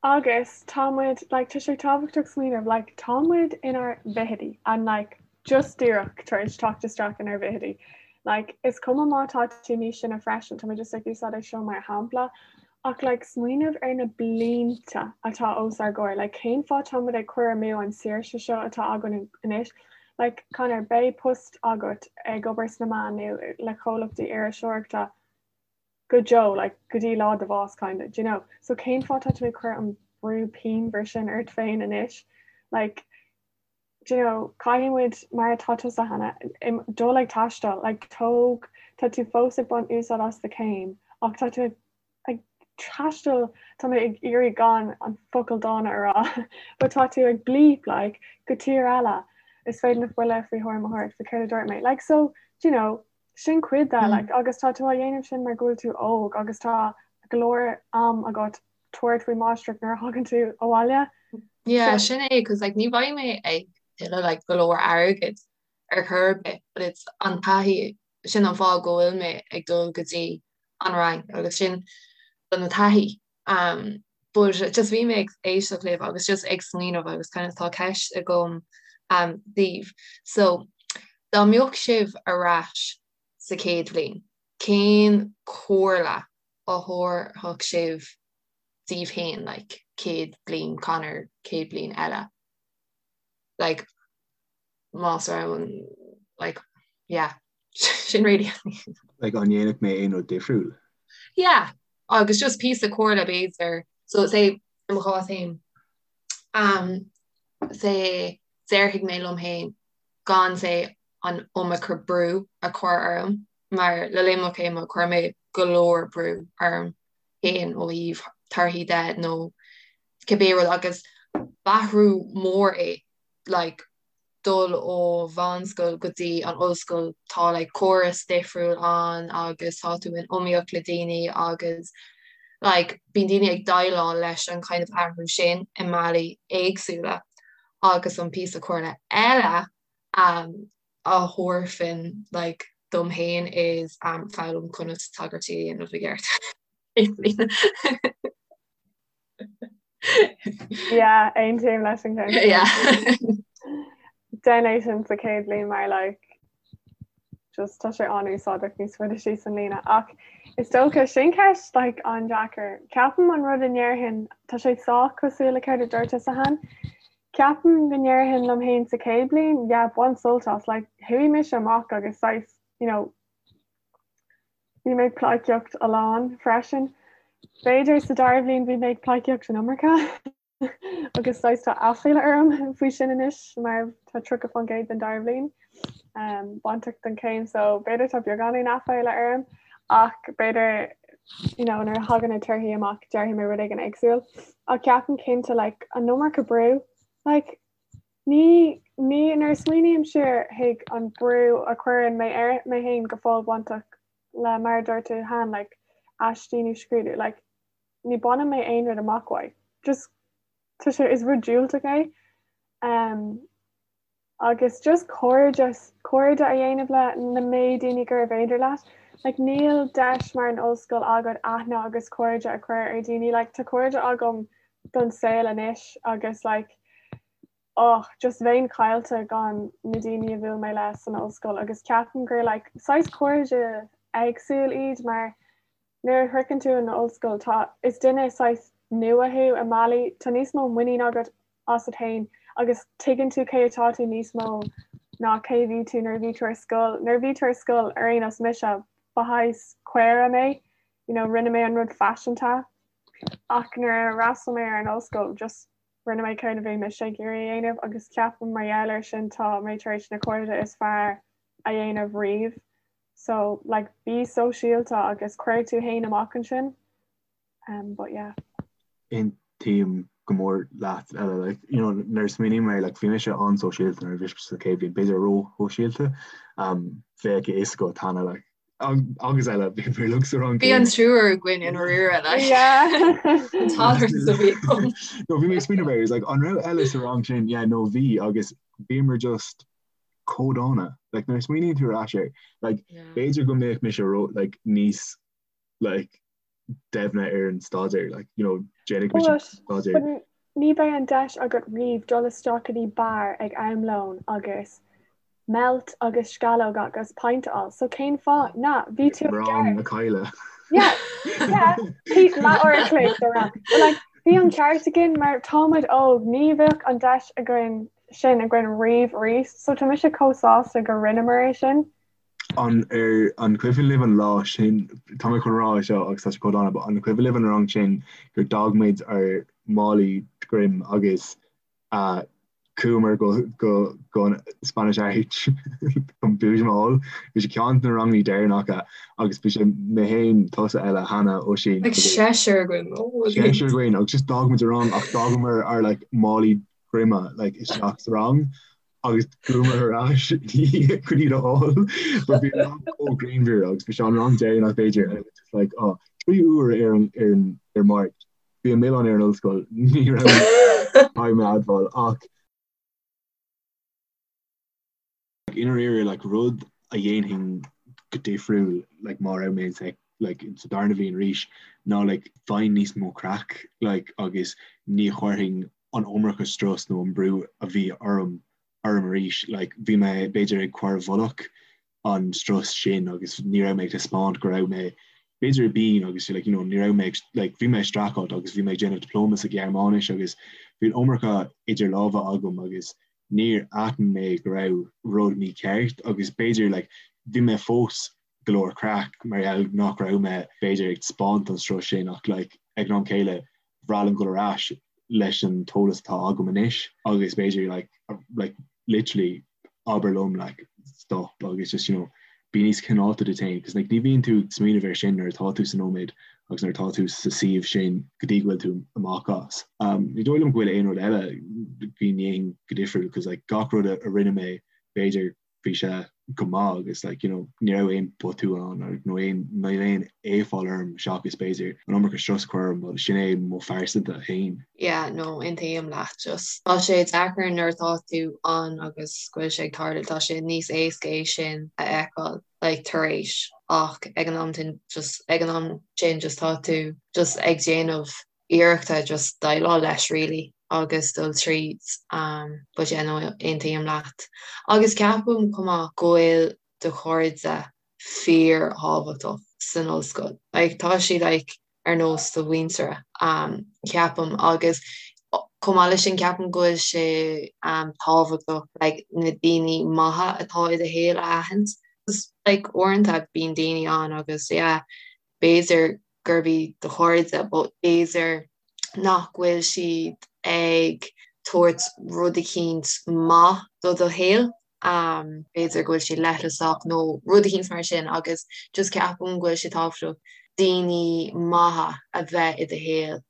Agus tá muid, like, tá sé tábhachtach smaoineamh, like, tá muid inár bhfichidí and like just díreach tar éis teacht isteach inár bhfichidí. Like, is cuma má tá tú níos sine freisin, tá mé just ag úsáid é seo mar shampla, Ach like smaoineamh ar na blianta atá os ár gcomhair, like cén fáth tá muid ag cur amú an saoirse seo atá againn anois? Like Conor, beidh post agat ag obair sna meáin nó le comhlachtaí iriseoireachta go deo, like go dtí lá do bhás kind of, do you know? So cén fáth tá tú ag cur an brú pianmhar sin ort féin anois? Like do you know, caithfidh muid, mar atá tusa Hannah, dul ag taisteal, like tóg, tá tú fós ag baint úsáid as do chéim ach tá tú ag, ag taisteal, tá mé ag iarraidh gan an focal dána a rá, but tá tú ag bleep like go tír eile, is féidir na buille faoi thuairim a thabhairt faoi céard a dúirt mé. Like so, do you know, sin cuid de, like agus tá tú á dhéanamh sin mar go bhfuil tú óg agus tá go leor am agat tabhairt faoi máistreacht nuair a thagann tú abhaile. Yeah, sin é, cos like ní bheidh mé ag tuilleamh like go leor airgid ar chor ar bith, but it's an taithí, sin an fáth go bhfuil mé ag dul go dtí an Fhrainc agus sin do na taithí. Um, but just bhí mé ag éisteacht libh agus just ag smaoineamh agus kind of tá ceist agam um, daoibh. So, dá mbeadh sibh ar ais sa chéad bhliain, cén comhairle a thabharfadh sibh daoibh féin like céad bliain Conor céad bliain eile like más raibh an like yeah sin really like an ndéanfadh mé aon rud difriúil? Yeah agus just píosa comhairle b'fhéidir so say i mo chás féin um say déarfaidh mé liom féin gan say an iomarca brú a chur orm mar le linn mo chéime chuir mé go leor brú orm féin ó thaobh torthaí de nó cibé rud agus b'athrú mór é like dul ó mheánscoil go dtí an ollscoil tá like córas difriúil ann agus tá tú in iomaíocht le daoine agus like bíonn daoine ag déileáil leis an kind of athrú sin i mbealaí éagsúla. Agus an píosa comhairle eile a thabharfainn like dom féin is foghlaim conas tagairtí a dhéanamh i gceart. Yeah, aontaím leis an gceann. Yeah. Déan é sin sa chéad bhliain mar like just tá sé an-úsáideach níos faide síos an líne. Ach is dócha sin ceist like an-deacair. Ceapaim an rud a ndéarfainn tá sé sách cosúil le céard a dúirt tusa Han. Ceapaim go ndéarfainn liom féin sa chéad bhliain, yeah, bain sult as, like chuaigh mise amach agus saghas, you know, Bhí mé ag pleidhcíocht a lán freisin. B'fhéidir sa dara bhliain bhí mé ag pleidhcíocht an iomarca agus saghas tá aiféala orm faoi sin anois mar tá 30% den dara bhliain um, bainteach don chéim so b'fhéidir tá beagáinín aiféala orm ach b'fhéidir you know, nuair a thagann na torthaí amach déarfaidh mé rud éigin éagsúil. Ach ceapaim cinnte like, an iomarca brú like, Ní, ní, nuair a smaoiním siar chuig an brú a chuireann mé ar mé féin go fóill bainteach le mar a dúirt tú Han, like, aistí nó scrúdú, like, ní baineann mé aon rud amach uaidh. Just, tá sé, is rud diúltach é. Um, agus just cairdeas, cairde a dhéanamh le na méid daoine gurbh fhéidir leat. Like, níl deis mar an ollscoil agat aithne agus cairde a chur ar daoine. Like, tá cairde agam don saol anois agus like, oh just bheinn caillte gan na daoine a bhuail mé le san ollscoil agus ceapaim gur like saghas cairde éagsúil iad mar nuair a shroicheann tú an ollscoil tá is duine saghas nua thú i mbealaí tá níos mó muinín agat asat féin agus tuigeann tú cé atá tú níos mó ná cé bhí tú nuair a bhí tú ar scoil. Nuair a bhí tú ar scoil ar aon nós mise ba shaghas caora mé you know rinne mé an rud faiseanta ach nuair a fhreastail mé ar an ollscoil just Rinne mé céard a bhí mise ag iarraidh a dhéanamh agus ceapaim mar gheall air sin tá mé tar éis na cairde is fearr a dhéanamh riamh. So like bí sóisialta agus cuir tú fhéin amach ansin. Um, but yeah. Aontaím go mór leat Ella like you know nuair a smaoiním air like bhí mise an-sóisialta nuair a bhí sa chéad bhliain b'fhéidir ró-shóisialta um, bheadh a fhios agat Hannah like agus eile bhí mé liom sa rang Bhí an triúr againn i ndáiríre like. An t-alert a bhí agam. No bhí mé ag smaoineamh air, like an raibh Ella sa rang sin yeah no bhí agus bhíomar just chomh dána like nuair a smaoiníonn tú ar ais air like b'fhéidir go mbeadh mise ró like níos like doimhne ar an staidéar like you know déanfaidh mise staidéar. But ní bheidh an deis agat riamh dul isteach go dtí beár ag am lóin agus malt agus sceallóg agus pint a fháil so cén fáth? Na, bhí tú ag Rang na caille. Yeah, yeah, leath uair a chloig de rang. But like bhí an ceart againn mar táimid óg, ní bheadh an deis againn sin againn riamh arís so tá mise chomh sásta go rinneamar é sin. An ar an cuimhin libh an lá sin, tá mé chun rá é seo agus tá sé chomh dána, but an cuimhin libh an rang sin gur d'fhág muid ár málaí droim agus chuamar go go go an Spanish Arch chun boojum a fháil. Bhí sé ceann de na ranganna deireanacha agus bhí sé mé féin, tusa Ella, Hannah, Oisín. Like seisear againn. Oh, seisear againn agus just d'fhág muid an rang ach d'fhágamar ár like málaí droime like isteach sa rang agus chuamar ar ais chun iad a fháil but bhí an rang chomh grianmhar agus bhí sé an rang deireanach b'fhéidir and it was just like oh 3 uair ar an ar an ar Máirt bhí an milleán ar an ollscoil ní raibh caithfidh mé a admháil ach like i ndáiríre like rud a dhéanfainn go difriúil like má raibh mé sa like sa darna bhliain arís ná like bheinn níos mó craic like agus ní chuirfinn an iomarca strus nó an brú a bhí orm orm arís. Like bhí mé b'fhéidir ag cur i bhfolach an strus sin agus ní raibh mé ag taispeáint go raibh mé b'fhéidir i bpian agus like you know ní raibh mé like bhí mé ag streachailt agus bhí mé ag déanamh dioplóma sa Ghearmáinis agus bhí an iomarca idir lámha agam agus níor aithin mé go raibh rud mícheart agus b'fhéidir like bhí mé fós go leor craic mar gheall nach raibh mé b'fhéidir ag taispeáint an strus sin ach like ag an am céile bhreá liom dul ar ais leis an t-eolas atá agam anois agus b'fhéidir like like literally abair liom like stop agus just you know bí níos cineálta duit féin cos like ní bhíonn tú ag smaoineamh air sin nuair atá tú sa nóiméad agus nuair atá tú sa suíomh sin go dtí go bhfuil tú amach as. Um, ní dóigh liom go bhfuil aon rud eile go ndéanfainn go difriúil cos like gach rud a, a rinne mé b'fhéidir bhí sé. go maith agus like you know ní raibh aon botún ann nó aon níl aon éafáil orm seachas b'fhéidir an iomarca strus a chur orm but sin é mo phearsanta féin. Yeah no aontaím leat just tá sé deacair nuair atá tú ann agus go bhfuil sé ag tarlú tá sé níos éasca é sin a fheiceáil like tar éis ach ag an am sin just ag an am sin just tá tú just ag déanamh iarrachta just déileáil leis really agus dul tríd um but yeah no aontaím leat. Agus ceapaim chomh maith go bhfuil do chairde fíor thábhachtach san ollscoil. Like tá siad like ar nós do mhuintire um ceapaim agus chomh maith leis sin ceapaim go bhfuil sé um tábhachtach like na daoine maithe atá i do shaol a aithint. Like uaireanta bíonn daoine ann agus yeah b'fhéidir gurb iad do chairde but b'fhéidir nach bhfuil siad ag tabhairt rud eicínt maith do do shaol, b'fhéidir go bhfuil siad leithleasach nó rud eicínt mar sin agus just ceapaim go bhfuil sé tábhachtach daoine maithe a bheith i do shaol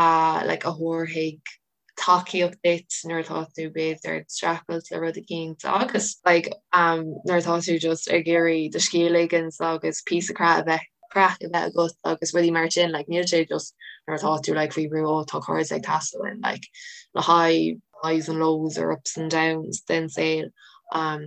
a like a thabharfaidh tacaíocht duit nuair atá tú b'fhéidir ag streachailt le rud eicínt agus like um nuair atá tú just ag iarraidh do scíth a ligint agus píosa craic a bheith craic a bheith agat agus rudaí mar sin like níl sé just nuair atá tú like faoi bhrú ó tá cairde ag teastáil uaim like le haghaidh highs and lows or ups and downs den saol um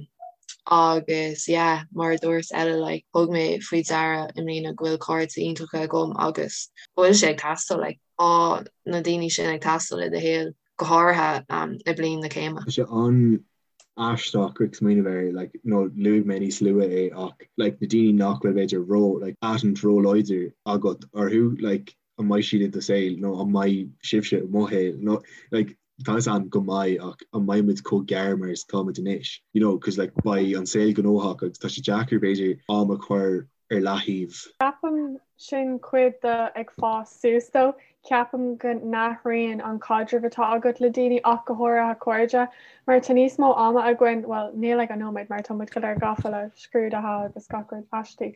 agus yeah mar a dúirt Ella like thug mé faoi deara i mbliana go bhfuil cairde iontacha agam agus go bhfuil sé ag teastáil like Tá na daoine sin ag teastáil i do shaol, go háirithe i bliain na céime. Tá sé an-aisteach ag smaoineamh air, like, nó luaigh mé níos luaithe é ach, like, na daoine nach bhfuil b'fhéidir ró, like, aithne róláidir agat orthu, like, an mbeidh siad i do saol nó an mbeidh sibhse i mo shaol nó, like, tá fhios a'm go mbeidh ach an mbeidh muid chomh gearr mar is atá muid anois, you know, cos, like, beidh an saol gnóthach agus tá sé deacair b'fhéidir am a chur ar leathaobh. Ceapaim sin cuid de ag fás suas though. Ceapaim go n-athraíonn an caidreamh atá agat le daoine ach go háirithe cairde mar tá níos mó ama againn, bhuel níl ag an nóiméad mar tá muid go léir gafa le scrúduithe agus gach rud aistí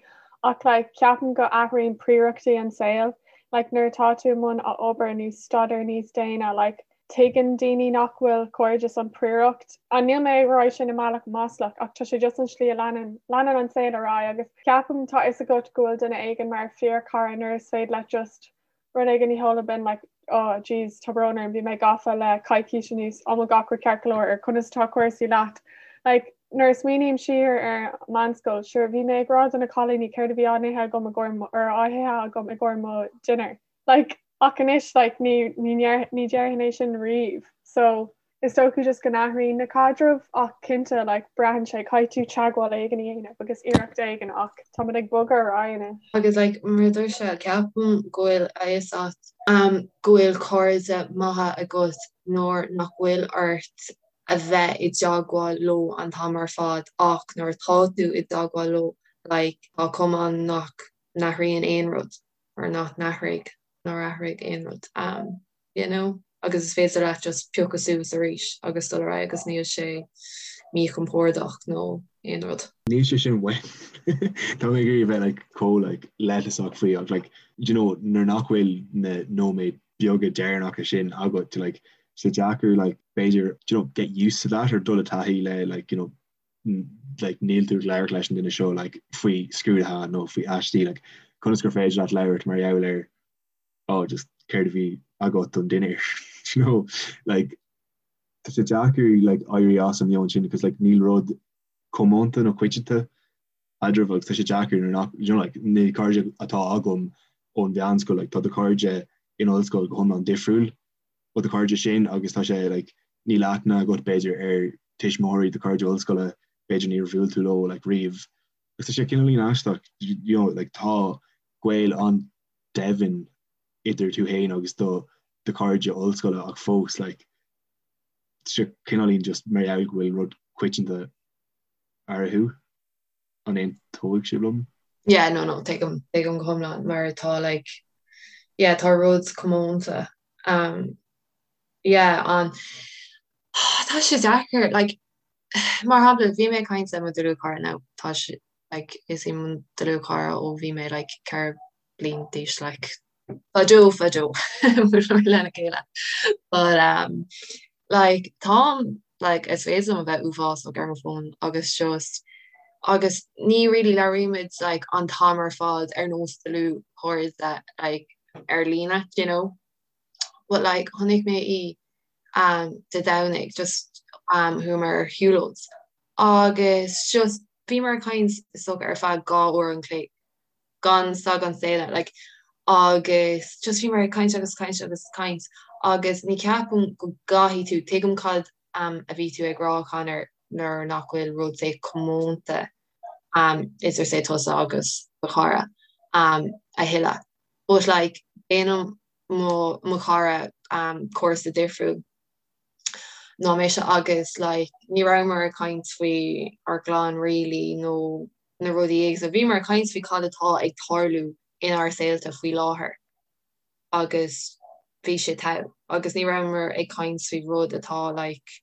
ach like ceapaim go athraíonn príorachtaí an saol like nuair atá tú i mbun obair nó staidéar níos déine like Tuigeann daoine nach bhfuil cairdeas an príoracht. An níl mé ag rá sin i mbealach maslach ach tá sé just an slí a leanann leanann an saol ar aghaidh agus ceapaim tá fhios agat go bhfuil duine éigin mar fíorchara nuair is féidir leat just rud éigin a sheoladh binn like oh jeez tá brón orm bhí mé gafa le coicís anuas an bhfuil gach rud ceart go leor or conas atá cúrsaí leat like nuair a smaoiním siar ar meánscoil sure bhí mé ag rá do na cailíní céard a bhí á n-ithe agam i gcomhair or á hithe agam i gcomhair mo dinner like Ach anois like ní ní ní déarfainn é sin riamh. So is dócha just go n-athraíonn na caidrimh ach cinnte like braitheann sé caithfidh tú teagmháil éigin a dhéanamh agus iarracht éigin ach táimid ag bogadh ar aghaidh anois. Agus like mar a dúirt sé, ceapaim go bhfuil a fhios a't um go bhfuil cairde maithe agat nuair nach bhfuil ort a bheith i dteagmháil leo an t-am ar fad ach nuair atá tú i dteagmháil leo like tá cuma ann nach n-athraíonn aon rud. or nach n-athraigh, nár athraigh aon rud, um, you know? Agus is féidir leat just piocadh suas arís agus dul ar aghaidh agus níl sé míchompordach nó aon rud. Níl sé sin uaim. Tá mé ag iarraidh a bheith like chomh like leithleasach faoi ach like do you know nuair nach bhfuil na nóiméid beaga deireanacha sin agat like sé deacair like b'fhéidir do you know get used to that or dul i dtaithí le like you know like níl tú ag labhairt leis an duine seo like faoi scrúduithe nó faoi aistí like conas gur féidir leat labhairt mar gheall ar oh just céard a bhí agat don dinnéar you know like tá sé deacair like éirí as an meon sin because like níl rud comónta nó coitianta eadraibh agus tá sé deacair nuair nach you know like na cairde atá agam ón mheánscoil like tá do chairde in ollscoil go hiomlán difriúil ó do chairde sin agus tá sé like níl aithne agat b'fhéidir ar tuismitheoirí do chairde ollscoile b'fhéidir níor bhuail tú leo like riamh agus tá sé cineáilín aisteach you know like tá gaol an-doimhin idir tú féin agus do do chairde ollscoile ach fós like tá sé cineáilín just mar gheall go bhfuil rud coitianta eatarthu an aontóidh sibh liom? Yeah no no tuigim tuigim go hiomlán mar tá like yeah tá rud comónta um yeah an tá sé deacair like mar shampla bhí mé ag caint le mo dlúthchara now tá sé like is í mo dlúthchara ó bhí mé like 4 bliain d'aois like fadó fadó lena chéile but um like tá. Like is féidir liom a bheith uafásach ar mo fón agus just agus ní really labhraímid like an t-am ar fad ar nós dlúthchairde like ar líne, do you know? But like chonaic mé í um Dé Domhnaigh just um chuamar ar shiúlóid agus just bhíomar ag caint is dócha ar feadh 2 uair an chloig gan stad gan staonadh like agus just bhíomar ag caint agus caint agus caint agus ní ceapaim go gcaithfidh tú, tuigim cad um a bhí tú ag rá Conor nuair nach bhfuil rud say comónta um idir say tusa agus do chara um a thuilleadh but like déanaim mo mo chara um cúrsa difriúil ná mise agus like ní rabhamar ag caint faoi ár gclann really nó na rudaí éagsúla. Bhíomar ag caint faoi cad atá ag tarlú inár saolta faoi láthair agus bhí sé togha agus ní rabhamar ag caint faoi rud atá like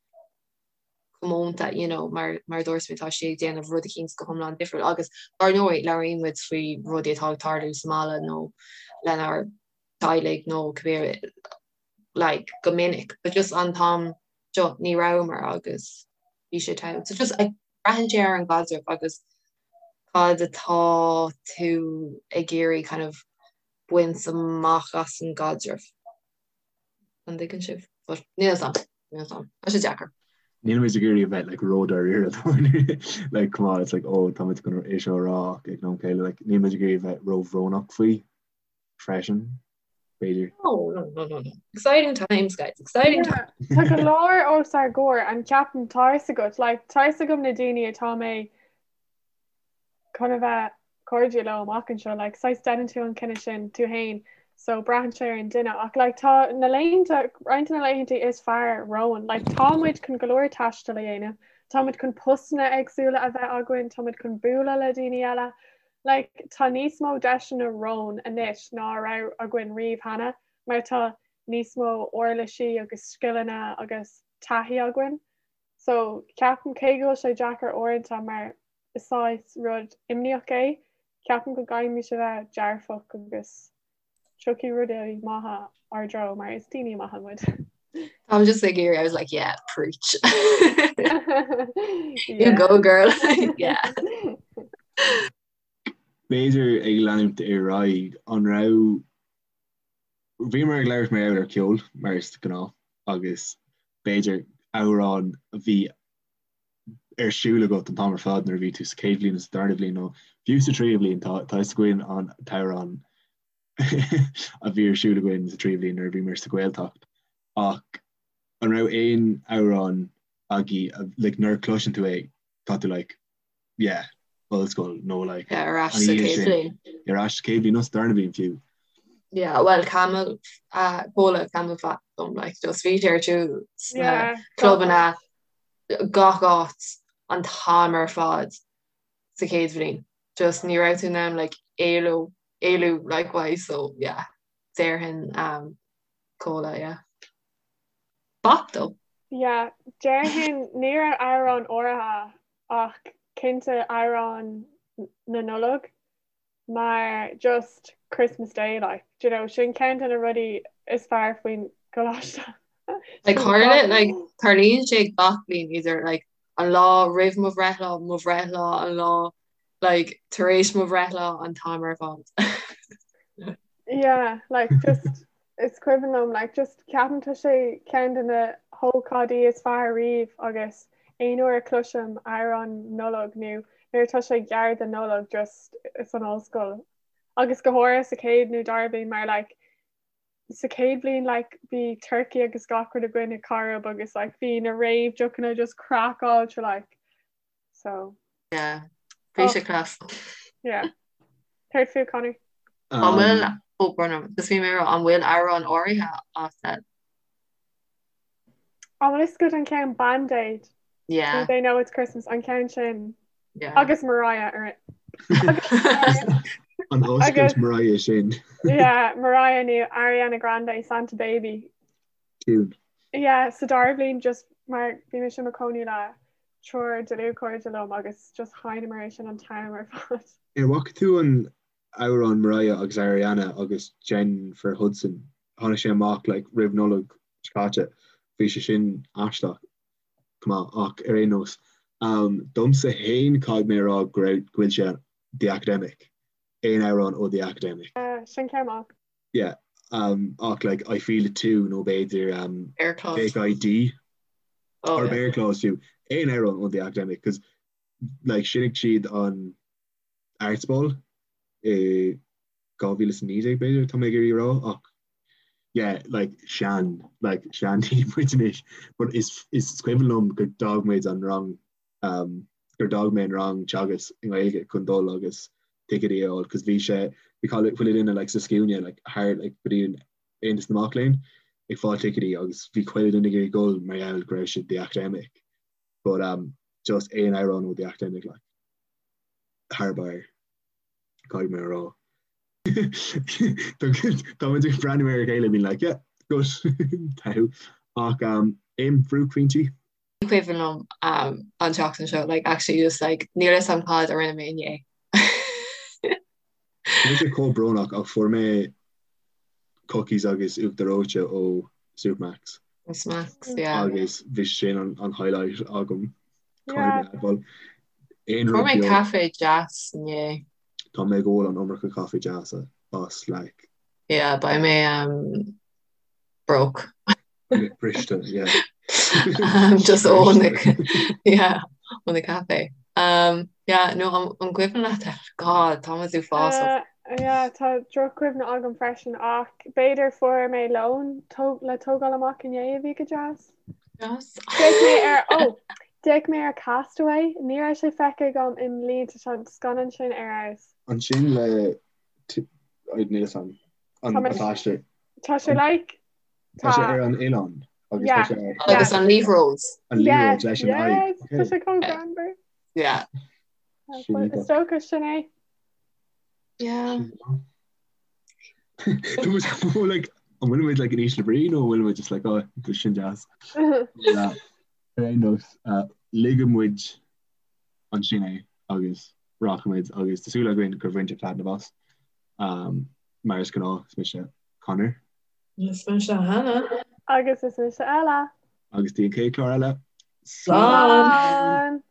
comónta you know mar mar a dúirt mé tá sí ag déanamh rud eicínt go hiomlán difriúil agus dar ndóigh labhraíonn muid faoi rudaí atá ag tarlú sa mbaile nó lenár dteaghlaigh nó cibé like go minic but just an t-am seo ní rabhamar agus bhí sé togha. So just braitheann sé ar an gcaidreamh agus cad atá tú ag iarraidh kind of baint amach as an gcaidreamh. An dtuigeann sibh? But níl a fhios a'm, níl a fhios a'm. Tá sé deacair. Níl muid ag iarraidh a bheith like ró-dáiríre like come on it's like oh tá muid chun é seo a rá ach ag an am céanna like níl muid ag iarraidh a bheith róbhrónach faoi freisin b'fhéidir. No, no, no, no, no. Exciting times, guys. Exciting times. Tá go leor os ár gcomhair an ceapaim tá a fhios agat, like, tá a fhios agam na daoine atá mé chun a bheith cairde leo amach anseo, like, saghas déanann tú an cinneadh sin tú féin, so braitheann sé ar an duine ach like, tá na laethanta, roinnt de na laethanta is fearr romhainn, like, tá muid chun go leor taistil a dhéanamh, tá muid chun postanna éagsúla a bheith againn, tá muid chun bualadh le daoine eile, Like, tá níos mó deiseanna romhainn anois ná a raibh againn riamh cheana, mar tá níos mó uirlisí agus scileanna agus taithí againn. So, ceapaim, cé go bhfuil sé deacair uaireanta mar is saghas rud imníoch é, ceapaim go gcaithfimid a bheith dearfach agus tiocfaidh rudaí maithe ár dtreo mar is daoine maithe muid. I'm just like here, I was like, yeah, preach. You go, girl. Yeah. B'fhéidir ag leanúint ar aghaidh, an raibh, bhíomar ag labhairt mar gheall ar ceol, mar is gnáth, agus b'fhéidir amhrán a bhí ar siúl agat an t-am ar fad nuair a bhí tú sa chéad bhliain nó sa darna bhliain nó fiú sa tríú bliain, tá a fhios againn an t-amhrán a bhí ar siúl againn sa tríú bliain nuair a bhíomar sa Ghaeltacht. Ach an raibh aon amhrán agaibh like nuair a chloiseann tú é tá tú like yeah, ollscoil nó like Yeah, ar ais sa chéad bhliain. Ar ais sa chéad bhliain nó sa darna bliain fiú. Yeah, well Camel, uh, Comhla CamelPhat dom like just bhí sé ar siúl sna Yeah, clubanna gach áit an t-am ar fad sa chéad bhliain. Just ní raibh tú in ann like éalú éalú like so yeah, déarfainn um, Comhla, yeah. Bop though. Yeah, déarfainn ní raibh amhrán áirithe ach cinnte amhrán na Nollag mar just Christmas Day like, do you know, sin ceann de na rudaí is fearr faoin gcoláiste. Like tharla like tarlaíonn sé gach bliain idir like an lá roimh mo bhreithlá, mo bhreithlá, an lá like tar éis mo bhreithlá an t-am ar fad. Yeah, like just Is cuimhin liom like just ceapaim tá sé ceann de na hócáidí is fearr riamh agus aon uair a chloisim amhrán Nollag nó nuair atá sé gar don Nollaig just is an ollscoil agus go háirithe sa chéad nó dara bliain mar like sa chéad bhliain like bhí turkey agus gach rud againn i Corrib agus like bhí na réamh-deochanna just craiceáilte like So. Yeah. Bhí sé class. Yeah. Céard fút Conor? An bhfuil ó bronnam, just bhí mé ag rá, an bhfuil amhrán áirithe agat? An bhfuil fhios agat an ceann Band Aid? Yeah. Do they know it's Christmas an ceann sin. Yeah. Agus Mariah ar it. An oscailt Mariah sin. Yeah, Mariah nó Ariana Grande Santa Baby. Tune. Yeah, sa dara bliain just mar bhí mise i mo cónaí le triúr dlúthchairde liom agus just sheinneamar é sin an t-am ar fad. Ar bhfaca tú an amhrán Mariah agus Ariana agus Jennifer Hudson? Tháinig sé amach like roimh Nollaig seo caite. Bhí sé sin aisteach. Go maith ach ar aon nós um, domsa féin caithfidh mé a rá go raibh go bhfuil sé The Academic. Aon amhrán ó The Academic. Uh, sin ceann maith. Yeah um ach like I Feel It Too nó b'fhéidir um Bear Claws. Fake ID Oh, or yeah. Bear Claws fiú. Aon amhrán ó The Academic cos like shínigh siad an Arts Ball i 2019 b'fhéidir tá mé ag iarraidh a rá ach yeah like sean like seandaoine muid anois but is is cuimhin liom gur d'fhág muid an rang um gur d'fhág mé an rang teagasc i nGaeilge chun dul agus ticéidí a fháil cos bhí sé bhí chuile chuile duine like sa scuaine like thar like go dtí an Aontas na Mac Léinn ag fáil ticéidí agus bhí chuile duine ag iarraidh dul mar gheall go raibh siad The Academic but um just aon amhrán ó The Academic like thar barr caithfidh mé a rá. Tá muid ag breathnú ar a chéile being like yeah good togha ach um aon bhuaicphointí? Ní cuimhin liom um an tseachtain seo like actually just like níl a fhios agam cad a rinne mé inné. Tá mise chomh brónach ach fuair mé cookies agus uachtar reoite ó Supermacs. Smacks, yeah. Agus bhí sin an, an highlight agam. Yeah. Aon Fuair rud mé beag. caife deas inné. Tá mé ag ól an iomarca caife deasa as like Yeah, beidh mé um, broke. briste, yeah. Um, just ó na yeah, ó na caife. Um, yeah, no, an, an cuimhin leat God, tá muid uafásach. Uh, yeah, tá drochchuimhne agam freisin ach b'fhéidir fuair mé lón tó- le tógáil amach inné a bhí go deas. Deas. D'fhéach mé ar oh, d'fhéach mé ar Castaway, ní raibh sé feicthe agam i mblianta tá an scannán sin ar fheabhas. Ansin le níl a fhios agam an Tá mé- t-aistear. Tá sé like Tá sé ar an oileán agus Yeah. tá sé ar Agus an liathróid. an liathróid leis an aghaidh. Yes, tá sé chomh greannmhar. Yeah. Sin Is iontach. dócha sin é. Yeah. Tá muid chomh, like, an bhfuil muid like in ísle brí nó an bhfuil muid just like oh tá sin deas. Yeah. Ar aon nós, uh, ligfidh muid ansin é agus rachaimid agus tá súil againn gur bhain sibh taitneamh as. Um, mar is gnáth, is mise Conor. Is mise Hannah. Agus is mise Ella. Agus go dtí an chéad chlár eile. Slán! Slán!